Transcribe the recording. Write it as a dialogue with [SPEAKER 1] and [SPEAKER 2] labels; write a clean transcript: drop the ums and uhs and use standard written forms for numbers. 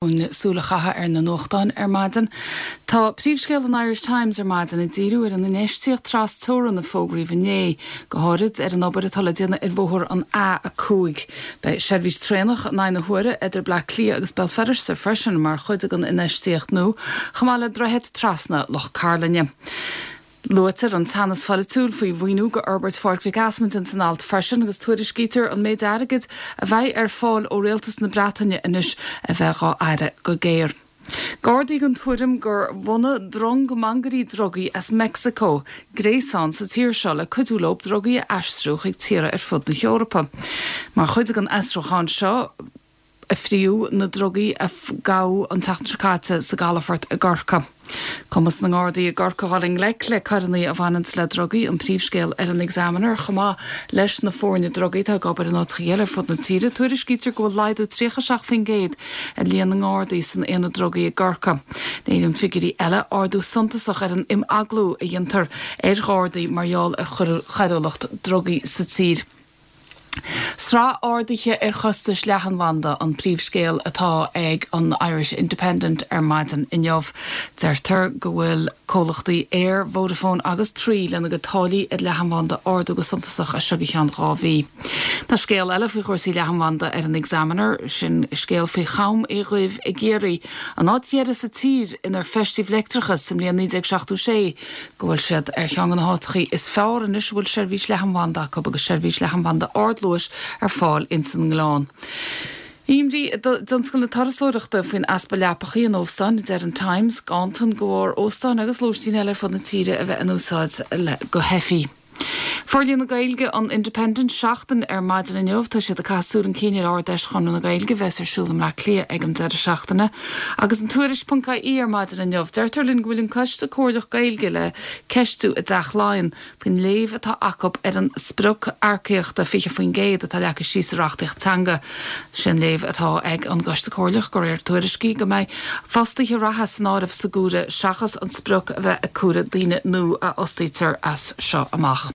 [SPEAKER 1] Chun súil a chaitheamh ar na nuachtáin ar maidin, tá príomhscéal an Irish Times ar maidin ag díriú ar an infheistíocht tras-teorann a fógraíodh inné, go háirid ar an obair atá le déanamh ar bhóthar an A5. Beidh seirbhís traenach in aghaidh na huaire idir Bleá Cliath agus Béal Feirste freisin mar chuid den infheistíocht nua, chomh maith le droichead trasna Loch Cairlinne. Luaitear an teannas pholaitiúil faoi mhaoiniú go fhorbairt Pháirc Mhic Easmaint ins an alt freisin agus tuairiscítear an méid airgid a bheidh ar fáil ó Rialtas na Breataine anois a bheith dhá fhaire go géar. Gardaí den tuairim gur bhunaigh drong mangairí drugaí as Meicsiceo gréasán sa tír seo le cuidiú leo drugaí a aistriú chuig tíortha ar fud na hEorpa. Mar chuid den fhiosrúchán seo, a fríodh na drugaí a gabhadh an tseachtain seo caite sa gcalafort i gCorcaigh. Cumas na nGardaí i gCorcaigh dhul i ngleic le coireanna a bhaineanns le drugaí an príomhscéal ar an Examiner chomh maith leis na foirne drugaí atá ag obair in áiteacha eile ar fud na tíre. Tuairiscítear go bhfuil laghdú 37% ar líon na nGardaí san aonad drugaí i gCorcaigh. Léiríonn figiúirí eile ardú suntasach ar an imeaglú a dhéantar ar Ghardaí mar gheall ar choiriúlacht drugaí sa tír. Sraith arduithe ar chostais leathanbhanda an príomhscéal atá ag an Irish Independent ar maidin inniu. Deirtear go bhfuil comhlachtaí Eir, Vodafone agus Three lena gcuid táillí ar leathanbhanda a ardú go suntasach as seo go ceann 2 mhí. Tá scéal eile faoi chúrsaí leathanbhanda ar an Examiner, sin scéal faoi Cham Uí Dhuibh i gCiarraí, an áit dheiridh sa tír inar feistíodh leictreachas sa mbliain 1976. go bhfuil siad ar cheann de na háiteachaí is fearr anois a bhfuil seirbhís leathanbhanda acu agus seirbhís leathanbhanda ardluais ar fáil ins an nGleann. Imní i dtionscal na turasóireachta faoin easpa leapachaí in óstáin, a deir an Times, ganntan de bharr óstáin agus lóistín eile ar fud na tíre a bheith in úsáid go heifí. Forlíonadh Gaeilge an Independent Seachtain ar maidin inniu. Tá siad ag caitheamh súil chun cinn ar Ard-Fheis Chonradh na Gaeilge a bheas ar siúl i mBleá Cliath ag an deireadh seachtaine. Agus an Tuairisc ponc ie ar maidin inniu, deirtear linn go bhfuil an Coiste Comhairleach Gaeilge le ceistiú i dTeach Laighean faoin léamh atá acu ar an sprioc earcaíochta 20% atá leagtha síos sa reachtaíocht teanga. Sé an léamh atá ag an gCoiste Comhairleach, de réir tuairiscí, go mbeidh fostaithe reatha san áireamh sa gcomhaireamh seachas an sprioc a bheith ag comhaireamh daoine nua a fhostaítear as seo amach.